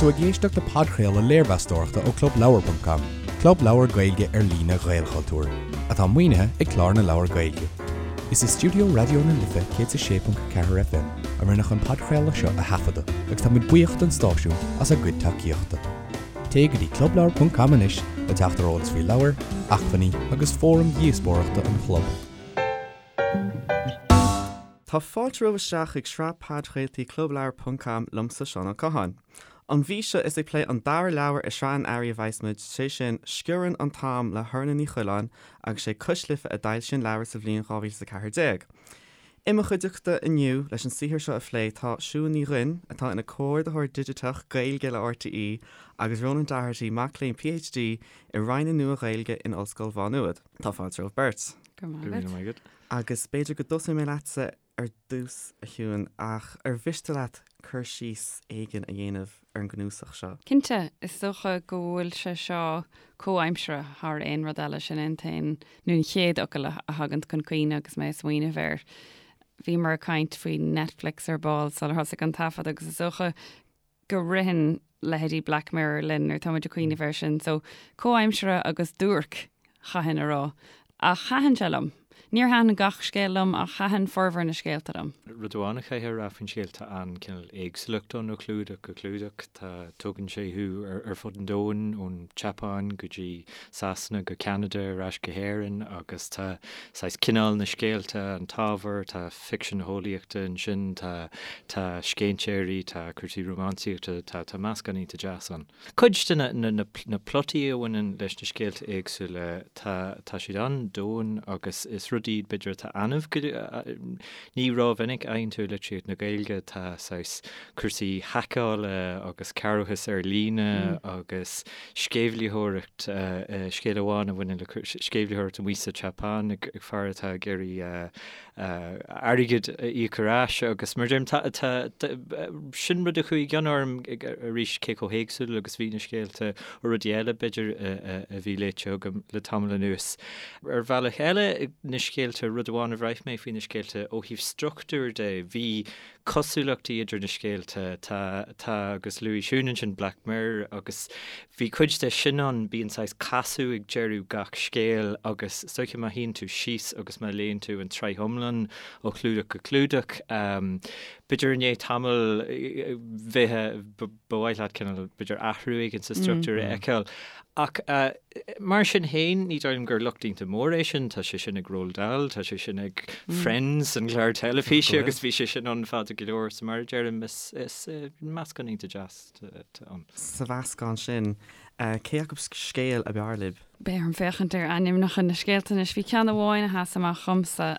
tú ag éisteacht le podchraoladh léirmheastóireachta ó ClubLeabhar.com, club leabhar Gaeilge ar líne Ghaelchultúir, atá maoinithe ag Clár na Leabhar Gaeilge. Is i stiúideo Raidió na Life 106.4 FM a rinneadh an podchraoladh seo a thaifeadadh agus tá muid buíoch don stáisiún as a gcuid tacaíochta. Téigh go dtí clubleabhar.com anois le teacht ar eolas faoi leabhair, acmhainní agus fóraim dhíospóireachta an chlub. Tá fáilte romhaibh isteach chuig sraith podchraoltaí Clubleabhar ponc com liomsa Seán Ó Catháin. An mhí seo is ag plé an dara leabhar i sraith an Earraigh a bheas muid, sé sin Sciorann an tAm le hOrna Ní Choileáin agus sé Cois Life a d'fhoilsigh an leabhar sa bhliain 2014. I mo chuideachta inniu leis an saothar seo a phlé tá Siún Ní Dhuinn, atá ina Comhordaitheoir Digiteach Gaeilge le RTÉ agus Rónán Doherty, mac léinn PhD i Roinn na Nua-Ghaeilge in Ollscoil Mhá Nuad. Tá fáilte romhaibh beirt. Go raibh maith agat. Agus b'fhéidir go dtosóidh mé leatsa ar dtús, a Shiúin, ach ar mhiste leat cur síos éigin a dhéanamh ar an gcnuasach seo? Cinnte, is dócha go bhfuil sé seo comhaimseartha thar aon rud eile, sin é an t-aon, nó an chéad fhocal a thagann chun cuimhne agus mé ag smaoineamh air. Bhíomar ag caint faoi Netflix ar ball sular thosaigh an taifead agus is dócha go ritheann leithéidí Black Mirror linn nuair atá muid ag cuimhneamh air sin. So, comhaimseartha agus duairc, chaithfinn a rá. Ach thaitin sé liom. Níor thaitin gach scéal liom ach thaitin formhór na scéalta liom. Rud amháin a chaithfear a rá faoin scéal, tá an cineál éagsúlacht ann ó chlúdach go clúdach. Tá, tugann sé thú ar fud an domhain, ón tSeapáin go dtí Sasana go Ceanada ar ais go hÉirinn agus tá saghas cineál na scéalta, an t-ábhar, tá ficsean eolaíochta ansin, tá tá scéinséirí, tá cúrsaí rómánsaíochta, tá tá meascán iontach deas ann. Cuid de na na na plotaí a bhaineann leis na scéalta éagsúla, tá tá siad an-domhain agus is rud iad b'fhéidir atá annamh go ní rómhinic a fhaigheann tú i litríocht na Gaeilge, tá saghas cúrsaí haiceála agus cearrbhachas ar líne agus sceimhlitheoireacht, scéal amháin a bhaineann le sceimhlitheoireacht amuigh sa tSeapáin ag fear atá ag iarraidh airgead a íoc ar ais agus mar a deirim, tá, sin rud a chuaigh i gcion orm arís cé chomh héagsúil agus bhí na scéalta ó rudaí eile b'fhéidir a bhí léite agam le tamall anuas. Ar bhealach eile, na scéalta, rud amháin a bhraith mé faoi na scéalta ó thaobh struchtúir de, bhí cosúlachtaí idir na scéalta. Tá, tá, agus luaigh Siún ansin Black Mirror agus bhí cuid de sin ann, bíonn saghas casadh ag deireadh gach scéil agus is dóiche má shuíonn tú síos agus má léann tú an tsraith iomlán ó chlúdach go clúdach, b'fhéidir i ndiaidh tamaill bheith, ba mhaith leat cineál, b'fhéidir athrú éigin sa struchtúr a fheiceáil. Ach mar sin féin, ní dóigh liom gur locht iontach mór é sin, tá sé sin ag Roald Dahl, tá sé sin ag Friends, an clár teilifíse, agus bhí sé sin ann fada go leor, so mar a deirim, is meascán iontach deas atá ann. Sa mheascán sin, cé acu scéal ab fhearr libh? Beidh orm féachaint ar ainmneacha na scéalta anois. Bhí ceann amháin a sheas amach dhomsa,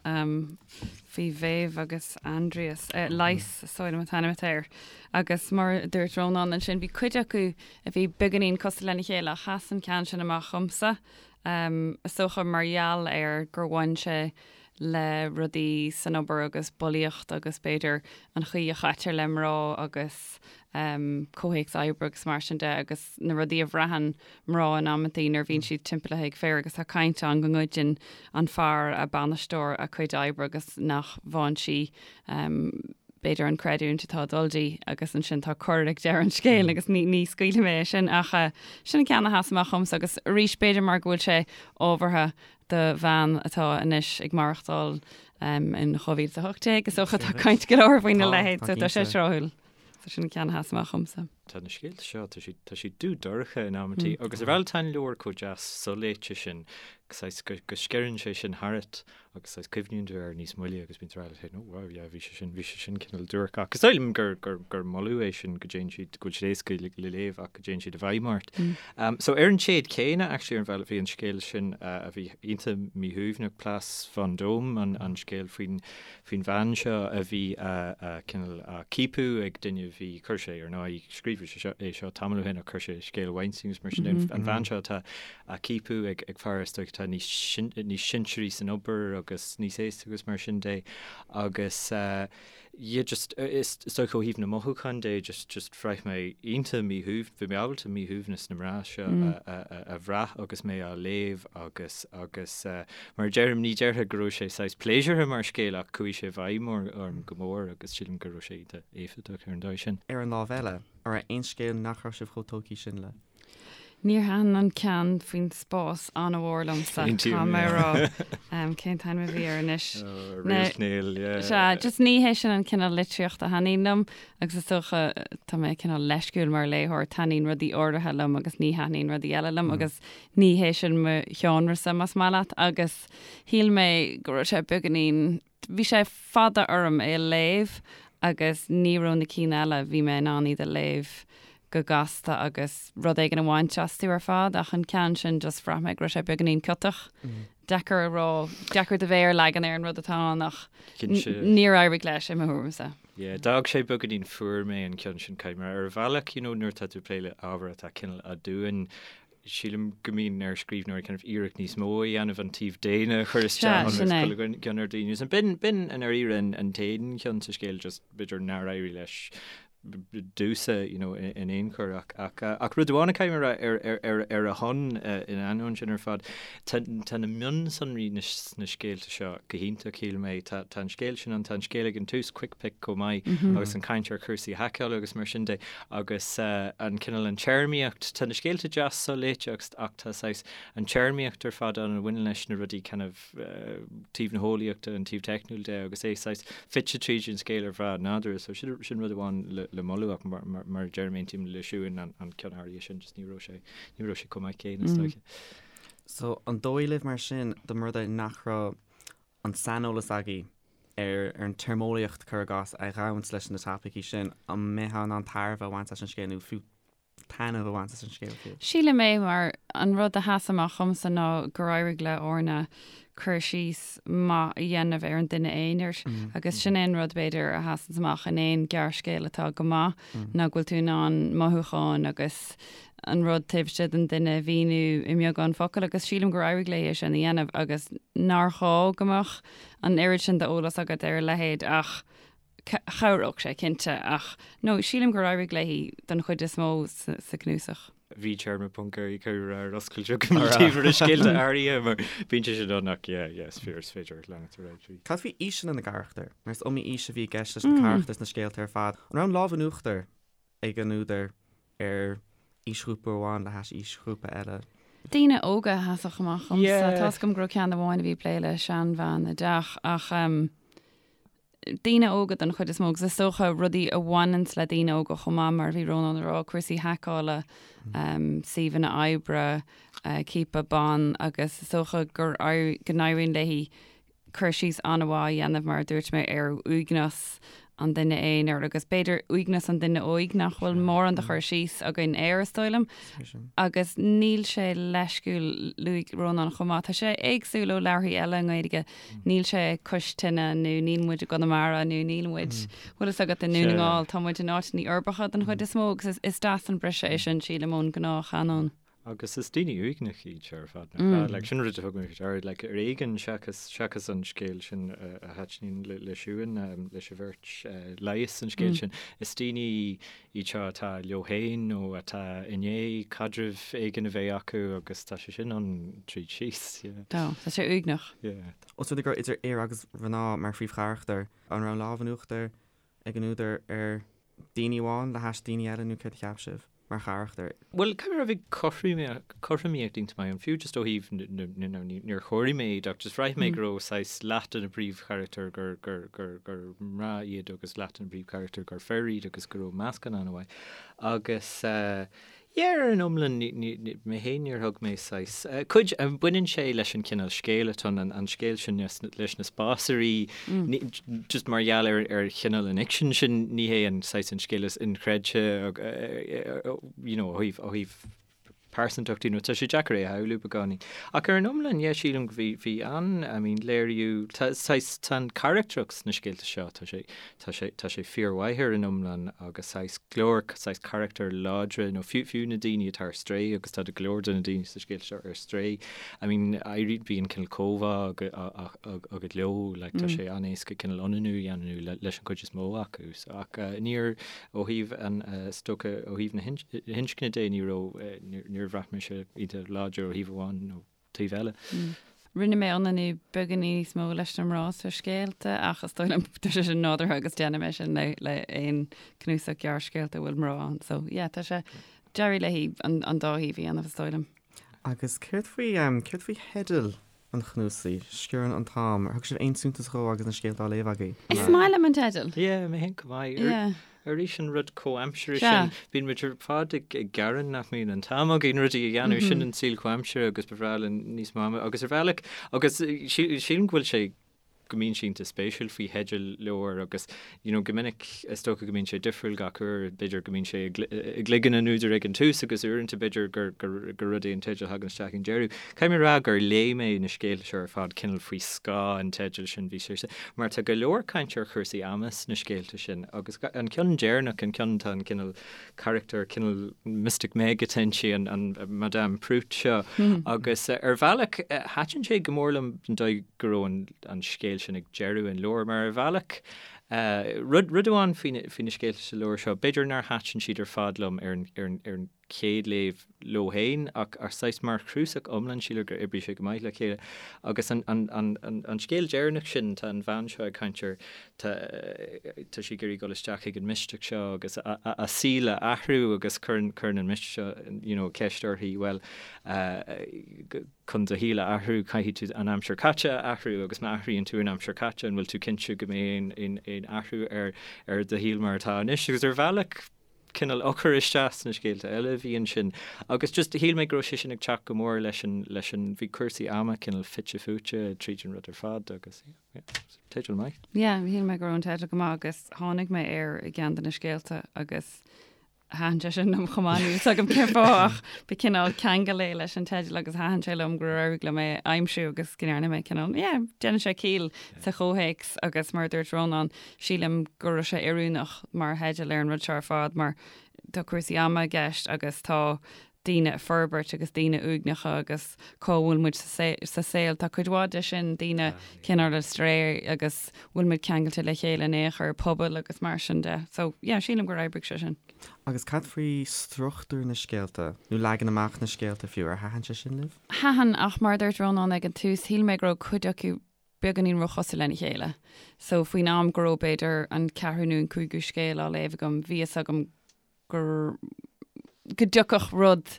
faoi Mhéabh agus Aindrias, Leigheas, is dóigh liom an t-ainm atá air. Agus mar a dúirt Rónán ansin, bhí cuid acu a bhí beagáinín cosúil lena chéile ach sheas an ceann sin amach dhomsa, is dócha mar gheall ar gur bhain sé le rudaí san obair agus bulaíocht agus b'fhéidir an chaoi a chaitear le mná agus comhthéacs oibre agus mar sin de agus na rudaí a bhraitheann mná in amantaí nuair a bhíonn siad timpeallaithe ag fir agus tá caint ann go ngoideann an fear a bainisteoir a cuid oibre agus nach bhfaigheann sí b'fhéidir an creidiúint atá ag dul di agus ansin tá cor ag deireadh an scéil agus ní ní scaoilfidh mé é sin ach sin an ceann a sheas amach dhomsa agus arís b'fhéidir mar go bhfuil sé ábhartha do bhean atá anois ag maireachtáil in 2018 is dócha tá caint go leor faoina leithéid so tá sé tráthúil. So sin an ceann a sheas amach dhomsa. Tá na scéalta seo, tá siad, tá siad dubh dorcha in amantaí agus ar bhealach tá an leabhar chomh deas soléite sin, saghas go, go sceireann sé sin tharat agus saghas cuimhníonn tú air níos moille agus bíonn tú ag rá leat féin, oh wow, yeah, bhí sé sin, bhí sé sin cineál duairc. Ach is dóigh liom gur, gur, gur moladh é sin go dtéann siad, go bhfuil siad éasca le, le léamh ach go dtéann siad i bhfeidhm ort. Um, so ar an téad céanna, actually, ar an bhealach bhí an scéal sin uh, a bhí iontach míshuaimhneach, Place Vendôme, an, an scéal faoin, faoin bhean seo a bhí a, cineál á ciapadh ag duine a bhí, chuir sé ar ndóigh, scríobhadh sé seo, é seo tamall ó shin ach chuir sé scéal Weinstein agus mar sin de, an bhean seo atá á ciapadh ag, ag fear is dóigh atá níos, níos sinsearaí san obair agus níos aosta agus mar sin de agus. Yeah just is dócha ó thaobh na mothúchán de just just bhraith mé iontach míshuaimh bhí mé ábalta míshuaimhneas na mná seo a a bhrath agus mé á léamh agus agus mar a deirim ní déarfá go raibh sé saghas pléisiúrtha mar scéal ach chuaigh sé i bhfeidhm orm go mór agus sílim go raibh sé iontach éifeachtach ar an dóigh sin. Ar an lámh eile, an raibh aon scéal nach raibh sibh chomh tógtha sin le? Níor thaitin an ceann faoin spás an-mhór liomsa, caithfidh mé a rá. Cén t-ainm a bhí air anois? Réaltnéal, yeah. Sea, just ní hé sin an cineál litríochta a thaitníonn liom agus is dócha tá mé cineál leisciúil mar léitheoir, taitníonn rudaí áirithe liom agus ní thaitníonn rudaí eile liom agus ní hé sin mo sheánrasa más maith leat agus shíl mé go raibh sé beagáinín Bhí sé fada orm é a léamh agus ní raibh na cinn eile, bhí mé in ann iad a léamh go gasta agus rud éigin a bhaint astu ar fad ach an ceann sin just bhraith mé go raibh sé beagáinín ciotach. Deacair a rá, deacair do mhéar a leagan ar an rud atá ann ach níor éirigh leis i mo thuairimse. Yeah, d'fhág sé beagáinín fuar mé an ceann sin, caithfidh mé ar bhealach, you know, nuair atá tú ag plé le ábhar atá cineál aduain, sílim go mbíonn ar scríbhneoirí kind of iarracht níos mó a dhéanamh an taobh daonna a chur isteach ionas go gcion ar daoine. So b'in, b'in i ndáiríre an, an t-aon cheann sa scéal just b'fhéidir nár éirigh leis domhsa, you know, in aon chor ach, ach, ach rud amháin a caithfidh mé a rá ar, ar, ar, ar a shon in ainneoin sin ar fad, tá, tá na mionsonraí na, sna scéalta seo go hiontach, shíl mé. Tá, tá an scéal sin ann, tá an scéal ag an tús, Quick Pick chomh maith agus an caint ar chúrsaí haiceála agus mar sin de. Agus an cineál, an téarmaíocht, tá na scéalta deas soléite agus ach tá saghas an téarmaíocht ar fad ann a bhaineann leis na rudaí kind of taobh na heolaíochta, an taobh teicniúil de agus é saghas fite tríd an scéal ar bhealach nádúrtha. So sin sin rud amháin le le moladh ach mar mar mar a deirim aontaím le Siún an an ceann áirithe sin just ní raibh sé ní raibh sé chomh maith céanna is dóiche. So an dóigh libh mar sin dá mba rud é nach raibh an saineolas agaibh ar an téarmeolaíocht, cuir i gcás, a ghabhanns leis na topaicí sin, an mbeifeá in ann tairbhe a bhaint as an scéal nó fiú taitneamh a bhaint as an scéal fiú? Sílim é, mar an rud a sheas amach dhomsa ná gur éirigh le Orna cur síos maith a dhéanamh ar an duine aonair agus sin é an rud, b'fhéidir, a sheasanns amach in aon ghearrscéal atá go maith ná go bhfuil tú in ann mothúcháin agus an rud taobh istigh den duine a mhíniú i mbeagán focal agus sílim gur éirigh léi é sin a dhéanamh agus nár ghá go mbeadh an oiread sin d'eolas agat ar a leithéid ach chabhródh sé cinnte ach no sílim gur éirigh léi don chuid is mó sa cnuasach. Bhí téarma ponc ar cur ar oscailt agam taobh ar scéalta áirithe mar bíonn sé sin ann ach yeah yeah is fíor is féidir leanacht ar aghaidh. Cad faoi aoiseanna na gcarachtar? Mar is iomaí aois a bhí i gceist leis na carachtair sna scéalta ar fad. An raibh an lámh in uachtar ag an údar ar aoisghrúpa amháin le hais aoisghrúpa eile. Daoine óga a sheasfadh amach dhomsa. Tá 'fhios agam go raibh ceann amháin a bhí ag plé le seanbhean i dteach ach daoine óga don chuid is mó agus is dócha rudaí a bhaineanns le daoine óga chomh maith mar a bhí Rónán ag rá, cúrsaí haiceála, suíomhanna oibre, ciapadh ban agus is dócha gur go n-éiríonn léi cur síos an-mhaith a dhéanamh, mar a dúirt mé, ar uaigneas an duine aonair agus b'fhéidir uaigneas an duine óig nach bhfuil mórán de chur síos againn air, is dóigh liom. Agus níl sé leisciúil, luaigh Rónán chomh maith, tá sé éagsúil ó leabharthaí eile i nGaeilge, níl sé cois tine nó níl muid i gConamara nó níl muid, bhfuil fhios agat, i nDún na nGall, tá muid in áiteanna uirbeacha den chuid is mó agus is deas an briseadh é sin, sílim, ón ngnáthchanóin. Agus is daoine uaigneacha iad seo ar fad, nach ea? Like, sin rud a thug mé faoi deara, like, ar éigean seachas, seachas an scéal sin a thaitníonn le, le Siún, leis an bheirt, leigheas an scéal sin, is daoine iad seo atá leo féin nó atá i ndiaidh caidreamh éigin a bheith acu agus tá sé sin ann tríd síos, yeah. Tá, tá sé uaigneach. Yeah. Os rud é go raibh idir fhir agus mhná mar phríomhcharachtair, an raibh an lámh in uachtar ag an údar ar daoine amháin le hais daoine eile nó céard a cheap sibh mar charachtair? Bhuel, caithfidh mé a rá bhí cothromaíocht iontach maith ann, fiú just ó thaobh na, níor chomhair mé iad ach just bhraith mé go raibh saghas leath de na príomhcharachtair gur, gur, gur, gur mná iad agus leath de na príomhcharachtair gur fir iad agus go raibh meascán an-mhaith. Agus eh, Yeah, ar an iomlán, mé féin níor thug mé saghas, cuid, baineann sé leis an chineál scéil atá ann, an scéal sin leis na spásairí, just mar gheall ar ar chineál an fhicsin sin, ní hé an saghas an scéal is inchreidte, you know, ó thaobh, ó thaobh pearsantachtaí nó tá sé deacair é a shamhlú beagáinín. Ach ar an iomlán, yeah, sílim go bhí, bhí an, I mean, léiriú, tá, saghas, tá an carachtracht sna scéalta seo, tá sé, tá sé, tá sé fíormhaith ar an iomlán agus saghas go leor, saghas carachtair láidre nó fiú, fiú na daoine atá ar strae agus tá go leor de na daoine sa scéal seo ar strae, I mean, éiríonn, bíonn cineál comhbhá agat leo, like, tá sé an-éasca cineál ionannú a dhéanamh leis an chuid is mó acu. So, ach níor, ó thaobh an, is dócha, ó thaobh na hinscne de, ní raibh, níor bhraith mise iad láidir ó thaobh amháin nó taobh eile. Rinne mé ionannú beagáinín níos mó leis na mná sna scéalta ach is dóigh liom tá sé sin nádúrtha agus déanaim é sin le le aon cnuasach gearrscéalta a bhfuil mná ann. So yeah, tá sé, d'éirigh léi an an dá thaobh a dhéanamh is dóigh liom. Agus céard faoi, céard faoi theideal an chnuasaigh, Sciorrann an tAm, ar thug sibh aon suntas dhó agus na scéalta á léamh agaibh? Is maith liom an teideal. Yeah, mé féin chomh maith. Yeah. Arís an rud comhaimseartha sin, bíonn muid ar fad ag gearán nach mbíonn an t-am againn rudaí a dhéanamh, sin an saol comhaimseartha agus ba bhreá linn níos mó ama agus ar bhealach, agus sílim go bhfuil sé, go mbíonn sé iontach spéisiúil faoi theidil leabhar agus you know go minic is dócha go mbíonn sé difriúil gach uair, b'fhéidir go mbíonn sé i gcloigeann an údair ag an tús agus uaireanta b'fhéidir gur gur rud é an teideal a thagann isteach ag an deireadh. Caithfidh mé a rá gur léigh mé na scéalta seo ar fad cineál faoi scáth an teidil sin, bhí sé mar tá go leor caint ar chúrsaí ama sna scéalta sin agus an ceann deireanach, an ceann tá an cineál carachtar cineál Mystic Meg atá inti, an an Madame Prout seo agus ar bhealach thaitin sé go mór liom an dóigh go raibh an an scéal sin ag deireadh an leabhair mar ar bhealach rud rud amháin faoi na faoi na scéalta sa leabhar seo b'fhéidir nár thaitin siad ar fad liom ar an ar an ar an chéad léamh leo féin ach ach saghas mar chnuasach iomlán sílim gur oibrigh sé go maith le chéile. Agus an an an an an scéal deireanach sin tá an bhean seo ag caint ar tá tá sí ag iarraidh dul isteach chuig an mistéach seo agus a a a saol a athrú agus cuireann cuireann an mistéach seo you know ceist uirthi bhuel chun do shaol a athrú caithfidh tú an aimsir caite a athrú agus má athraíonn tú an aimsir caite an bhfuil tú cinnte go mbeidh aon aon aon athrú ar ar do shaol mar atá anois agus ar bhealach cineál eochair isteach sna scéalta eile a bhí ansin agus just shíl mé go raibh sé sin ag teacht go mór leis an, leis an, bhí cúrsaí ama cineál fite fuaite tríd an rud ar fad agus yeah, yeah, teideal maith. Yeah, shíl mé go raibh an teideal go maith agus tháinig mé air i gceann de na scéalta agus thaitin sé sin liom chomh maith, níl fhios agam cén fáth ach ba cineál ceangal é leis an teideal agus thaitin sé liom gur éirigh liom é a aimsiú agus go ndearna mé cineál, yeah, déanann sé ciall sa chomhthéacs agus mar a dúirt Rónán, Sílim go raibh sé oiriúnach mar theideal ar an rud seo ar fad mar tá cúrsaí ama i gceist agus tá daoine ag forbairt agus daoine uaigneacha agus cá bhfuil muid sa saol. Tá cuid mhaith de sin, daoine cineál ar strae agus bhfuil muid ceangailte le chéile in aon chor, pobail agus mar sin de. So yeah, sílim gur oibrigh sé sin. Agus cad faoi struchtúr na scéalta, nó leagan amach na scéalta fiú, ar thaitin sé sin libh? Thaitin, ach mar a dúirt Rónán ag an tús, shíl mé go raibh cuid acu beagáinín róchosúil lena chéile. So faoin am go raibh b'fhéidir an ceathrú nó an cúigiú scéal á léamh agam, bhí fhios agam gur, go dtiocfadh rud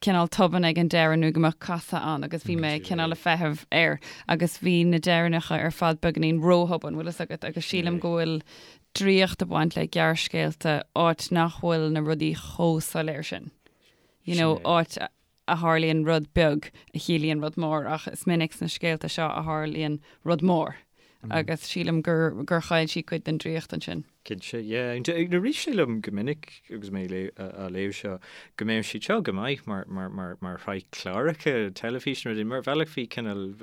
cineál tobann ag an deireadh nó go mbeadh casadh ann agus bhí mé cineál ag feitheamh air agus bhí na deireanacha ar fad beagáinín róthobann, bhfuil fhios agat, agus sílim go bhfuil draíocht ag baint le gearrscéalta áit nach bhfuil na rudaí chomh soiléir sin. You know, áit a tharlaíonn rud beag a chiallaíonn rud mór ach is minic sna scéalta seo a tharlaíonn rud mór agus sílim gur gur chaill sí cuid den draíocht ansin. Cinnte, yeah. Rith sé liom go minic agus mé á léamh seo go mbeadh siad seo go maith mar mar mar mar shraith cláracha teilifíse nó rudaí mar bhealach bhí cineál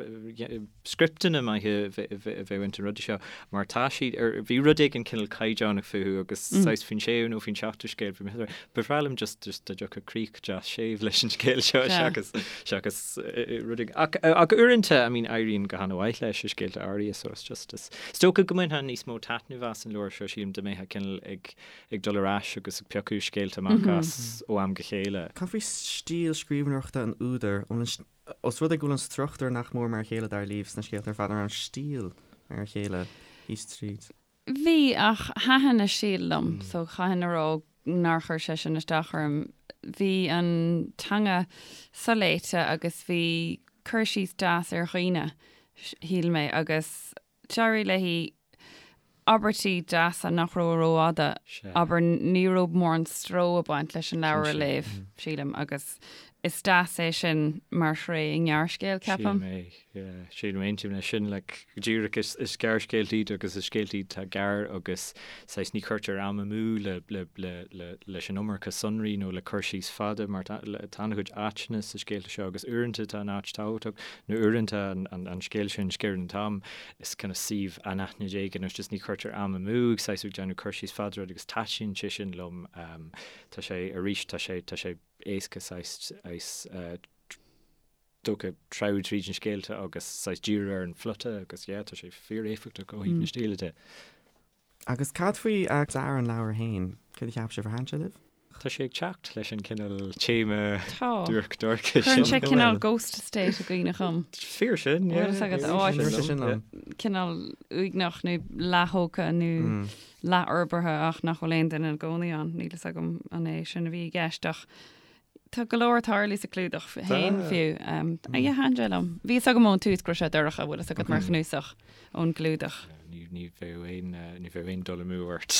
scripteanna maithe a bheadh ins na rudaí seo mar tá siad ar, bhí rud éigin cineál caighdeánach fúthu agus saghas faoin séú nó faoin seachtú scéal bhí mé, ba bhreá liom just just dá dtiocfadh críoch deas séimh leis an scéal seo seachas seachas rud éigin. Ach ach uaireanta I mean éiríonn go han-mhaith leis i scéalta áirithe so it's just is is dócha go mbainfeá níos mó taitnimh as an leabhar seo sílim dá mbeifeá cineál ag ag dul ar ais agus ag piocadh scéalta amach as ó am go chéile. Cad faoi stíl scríbhneoireachta an údair? An bhfuil an Os rud é go bhfuil an struchtúr nach mór mar a chéile dar libh sna scéalta ar fad, an raibh an stíl mar a chéile thíos tríd? Bhí, ach thaitin a stíl liom, so chaithfinn a rá nár chuir sé sin isteach orm. Bhí an teanga soléite agus bhí cur síos deas ar dhaoine, shíl mé, agus d'éirigh léi abairtí deasa nach raibh rófhada, abair, ní raibh mórán stró ag baint leis an leabhar a léamh, sílim, agus. Is deas é sin mar thréith i ngearrscéal, ceapaim. Sílim é, yeah. Sílim, aontaím leis sin, like, go díreach is, is gearrscéalta iad agus is scéalta iad atá gearr agus saghas ní chuirtear am amú le, le, le, le, leis an iomarca sonraí nó le cur síos fada mar tá, le, tá an-chuid áiteanna sa scéalta seo agus uaireanta tá an áit tábhachtach nó uaireanta an, an, an scéal sin, Sciorrann an t-am, is kind of suíomh anaithnid éigin nó just ní chuirtear am amú ag saghas ag déanamh cur síos fada ar rud agus taitníonn sé sin liom. Um, tá sé, arís, tá sé, tá sé, éasca saghas dócha treabhadh tríd na scéalta agus saghas díriú ar an phlota agus yeah tá sé fíor-éifeachtach ó thaobh na stíle de. Agus cad faoi dearadh an leabhair féin? Céard a cheap sibh? Ar thaitin sé libh? Tá sé ag teacht leis an cineál téama duairc dorcha sin. Cuireann sé cineál Ghost Estate i gcuimhne dhom. Fíor sin, yeah. Bhfuil fhios agat áit cineál uaigneach nó leath-thógtha nó leathfhorbartha ach nach bhfuil aon duine ina gcónaí ann. Níl fhios agam an é sin a bhí i gceist ach tá go leor ag tarlú sa chlúdach féin fiú. Yeah, thaitin sé liom. Bhí fhios agam ón tús go raibh sé dorcha, bhfuil fhios agat mar chnuasach ón gclúdach. Ní bheadh aon ní bheadh aon dul amú ort.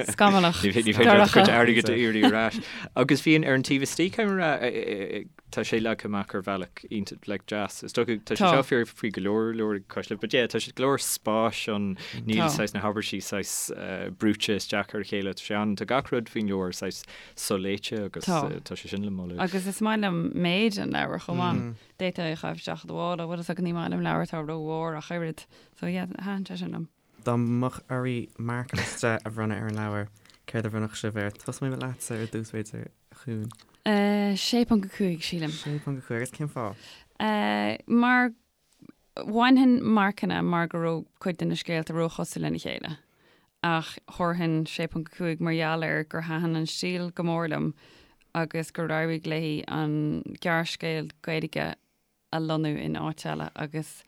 Scamallach. Ní féidir leat do chuid airgid a iarraidh ar ais. Agus bhí ar an taobh istigh, caithfidh mé a rá, Tá sé leagtha amach ar bhealach iontach like deas. Is dócha tá sé seo fíor faoi go leor leabhar ag Cois Life, but yeah tá sé go leor spáis ann, níl saghas na habairtí saghas brúite isteach ar a chéile, tá sé an, tá gach rud faoin leabhar saghas soléite agus tá sé sin le moladh. Agus is maith liom méid an leabhair chomh maith. D'fhéadfá é a chaitheamh isteach i do mhála, bhfuil fhios agat ní maith liom leabhair atá rómhór ach oiread. So yeah, thaitin sé sin liom. Dá mbeadh oraibh marc as 10 a bhronnadh ar an leabhar, céard a bhronnfadh sibh air? Tosóidh mé leatsa ar dtús b'fhéidir, a Shiún. 6.5, sílim. 6.5, agus cén fáth? Mar bhainfinn marcanna mar go raibh cuid de na scéalta róchosúil lena chéile, ach thabharfainn 6.5 mar gheall ar gur thaitin an stíl go mór liom agus gur éirigh léi an gearrscéal Gaeilge a lonnú in áit eile agus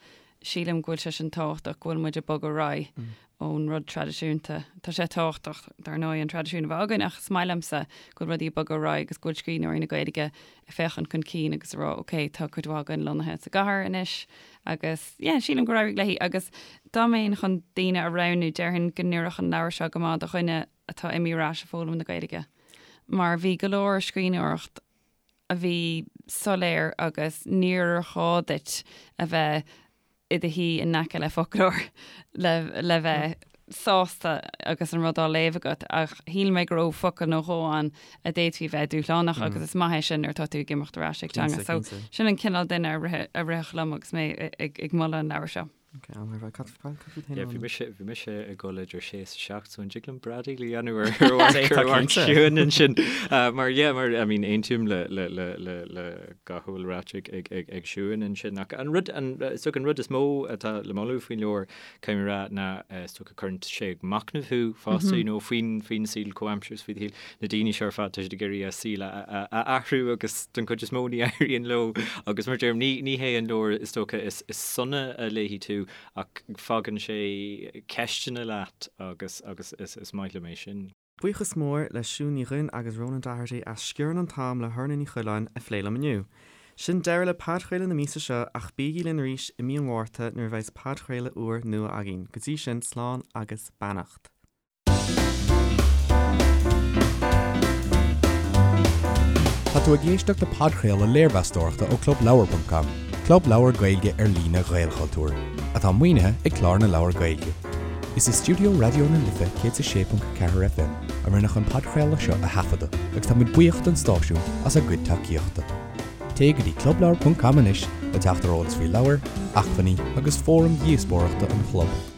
sílim go bhfuil sé sin tábhachtach, go bhfuil muid ag bogadh ar aghaidh ón rud traidisiúnta. Tá sé tábhachtach, dar ndóigh, an traidisiún a bheith againn ach is maith liomsa go bhfuil rudaí ag bogadh ar aghaidh agus go bhfuil scríbhneoirí na Gaeilge ag féachaint chun cinn agus ag rá ok, tá cuid mhaith againn lonnaithe sa gcathair anois agus yeah, sílim gur éirigh léi agus dá mbeinn chun daoine a roghnú, déarfainn go n-oirfeadh an leabhar seo go maith do dhuine atá imithe ar ais ag foghlaim na Gaeilge mar bhí go leor scríbhneoireacht a bhí soiléir agus níor ghá duit a bheith i do shuí in aice le foclóir le le bheith sásta agus an rud á léamh agat ach shíl mé go raibh focal nó dhó ann a d'fhéadfaí a bheith dúshlánach agus is maith é sin nuair atá tú ag imeacht ar ais ag teanga. So sin an cineál duine a rithfeadh liom agus mé ag moladh an leabhair seo. Ok, an raibh cad cad faoi féin Yeah, bhí mise bhí mise ag dul idir sé is 7 so an dtig liom bradaíl a dhéanamh ar ar mharc ar mharc Siún ansin Uh, mar yeah mar I mean aontaím le le le le le gach a bhfuil ráite ag ag ag ag Siún ansin ach an rud an is dócha an rud is mó atá le moladh faoin leabhar caithfidh mé a rá ná eh, is dócha cuireann sé ag machnamh thú fosta you know faoin faoin saol comhaimseartha is faoi do shaol na daoine seo ar fad tá siad ag iarraidh a saol a a a athrú agus den chuid is mó ní éiríonn leo agus mar deirim ní ní hé an leabhar is dócha is is sona a léifidh tú ach fágann sé ceisteanna leat agus agus is is maith liom é sin. Buíochas mór le Siún Ní Dhuinn agus Ronan Doherty as Sciorrann an tAm le hOrna Ní Choileáin a phlé liom inniu. Sin deireadh le podchraoladh na míosa seo ach bígí linn arís i mí an Mhárta nuair a bheidhs podchraoladh úr nua againn. Go dtí sin, slán agus beannacht. Tá tú ag éisteacht le podchraoladh léirmheastóireachta ó ClubLeabhar.com, club leabhar Gaeilge ar líne Ghaelchultúir, atá maoinithe ag Clár na Leabhar Gaeilge. Is i stiúideo Raidió na Life 106.4 FM a rinneadh an podchraoladh seo a thaifeadadh agus tá muid buíoch don stáisiún as a gcuid tacaíochta. Téigh go dtí clubleabhar.com anois le teacht ar eolas faoi leabhair, acmhainní agus fóraim dhíospóireachta an chlub.